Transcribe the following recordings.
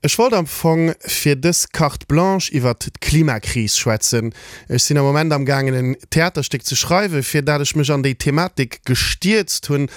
Ech wollt am Fong fir dës Carte Blanche iwwert d'Klimakris schwätzen. Ech sinn am Moment am gaangen en Theaterstéck ze schreiwen, fir dat ech mech an déi Thematik gestierzt hunn.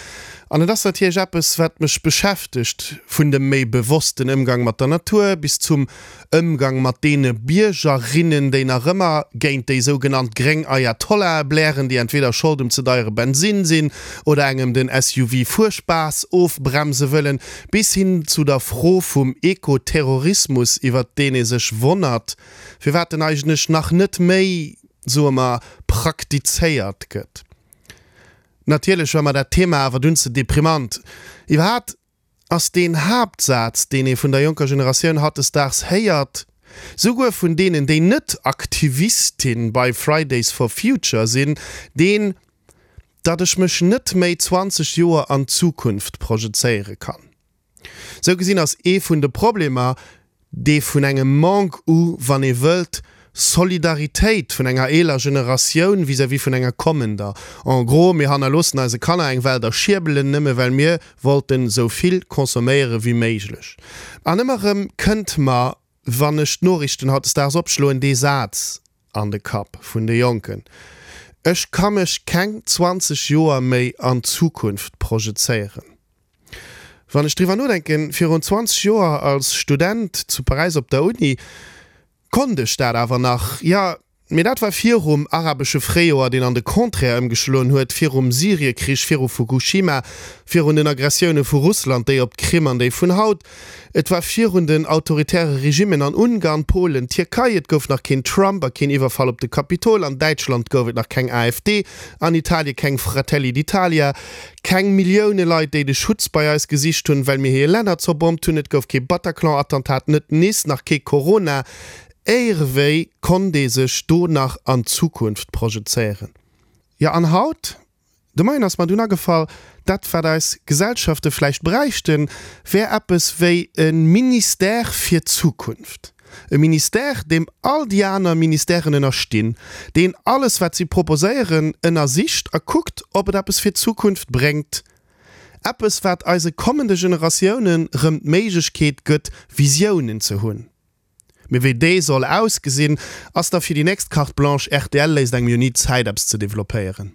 An et ass natierlech eppes, wat mech beschäftegt, vun dem méi bewossten Ëmgang mat der Natur bis zum Ëmgang mat deene Biergerinnen, déi nach ëmmer géint déi sougenannt gréng Ayatollahe blären, déi entweder Schold um ze deiere Bensinn sinn oder engem den SUV-Fuerspaass ofbremse wëllen, bis hin zu der Fro vum Ekoterrorismus, iwwert deen ee sech wonnert, firwat en eigentlech nach net méi, soe mer, praktizéiert gëtt. Natierlech war mer dat Thema awer dunn ze deprimant. Iwwerhaapt ass deen Haaptsaz, deen ee vun der jonker Generatioun hautdesdaags héiert, souguer vun deenen, déi net Aktivistin bei Fridays for Future sinn, deen, datt ech mech net méi 20 Joer an d'Zukunft projezéiere kann. Sou gesinn ass ee vun de Problemer dee vun engem Manque u, wann ee wëllt, Solidaritéit vun enger eeler Generatioun vis-à-vis vun enger kommender. En gros, mir hannerloossen eise Kanner eng Welt a Schierbelen, nëmme well mir wollten esou vill consomméiere wéi méiglech. An ëmmer erëm kënnt mer, wann ech d'Noriichten hautdesdaags opschloen, dee Saz an de Kapp vun de Jonken, Ech ka mech keng 20 Joer méi an d'Zukunft projezéieren. Wann ech driwwer nodenken, virun 20 Joer als Student zu Paräis op der Uni, konnt ech dat awer nach. Jo, mee dat war virum arabesche Fréijoer, deen an de Contraire ëmgeschloen huet, virum Syriekrich, viru Fukushima, virun den Aggressioune vu Russland, déi op d'Krim an déi vun haut. Et war virun den autoritäre Regimmen an Ungarn, Polen, Tierkei. Et gouf nach keen Trump a keen Iwwerfall op de Kapitol. An Däitschland gouf et nach keng AfD, an Italie keng Fratelli d'Italia. Keng Millioune Leit, déi de Schutz bei eis gesicht hunn, well mir hir Länner zerbommt hunn. Et gouf kee Bataclan-Attentat, net Nice, nach kee Corona. Éirewéi konnt ee sech do nach an d'Zukunft projezéieren? Jo, an haut? De Moien ass mer dunn agefall, dat wat eis Gesellschafte vläicht bräichten, wär eppes wéi e Ministère fir d'Zukunft. E Ministère, deem all déi aner Ministèren ënnerstinn, deen alles, wat si proposéieren, ënnersicht a kuckt, ob et eppes fir d'Zukunft bréngt. Eppes, wat eise kommende Generatiounen rëm d'Méiglechkeet gëtt, Visiounen ze hunn. Mee wéi déi soll ausgesinn, ass da fir déi nächst Carte Blanche. Rtl léisst engem jo ni Zäit, eppes ze developpéieren.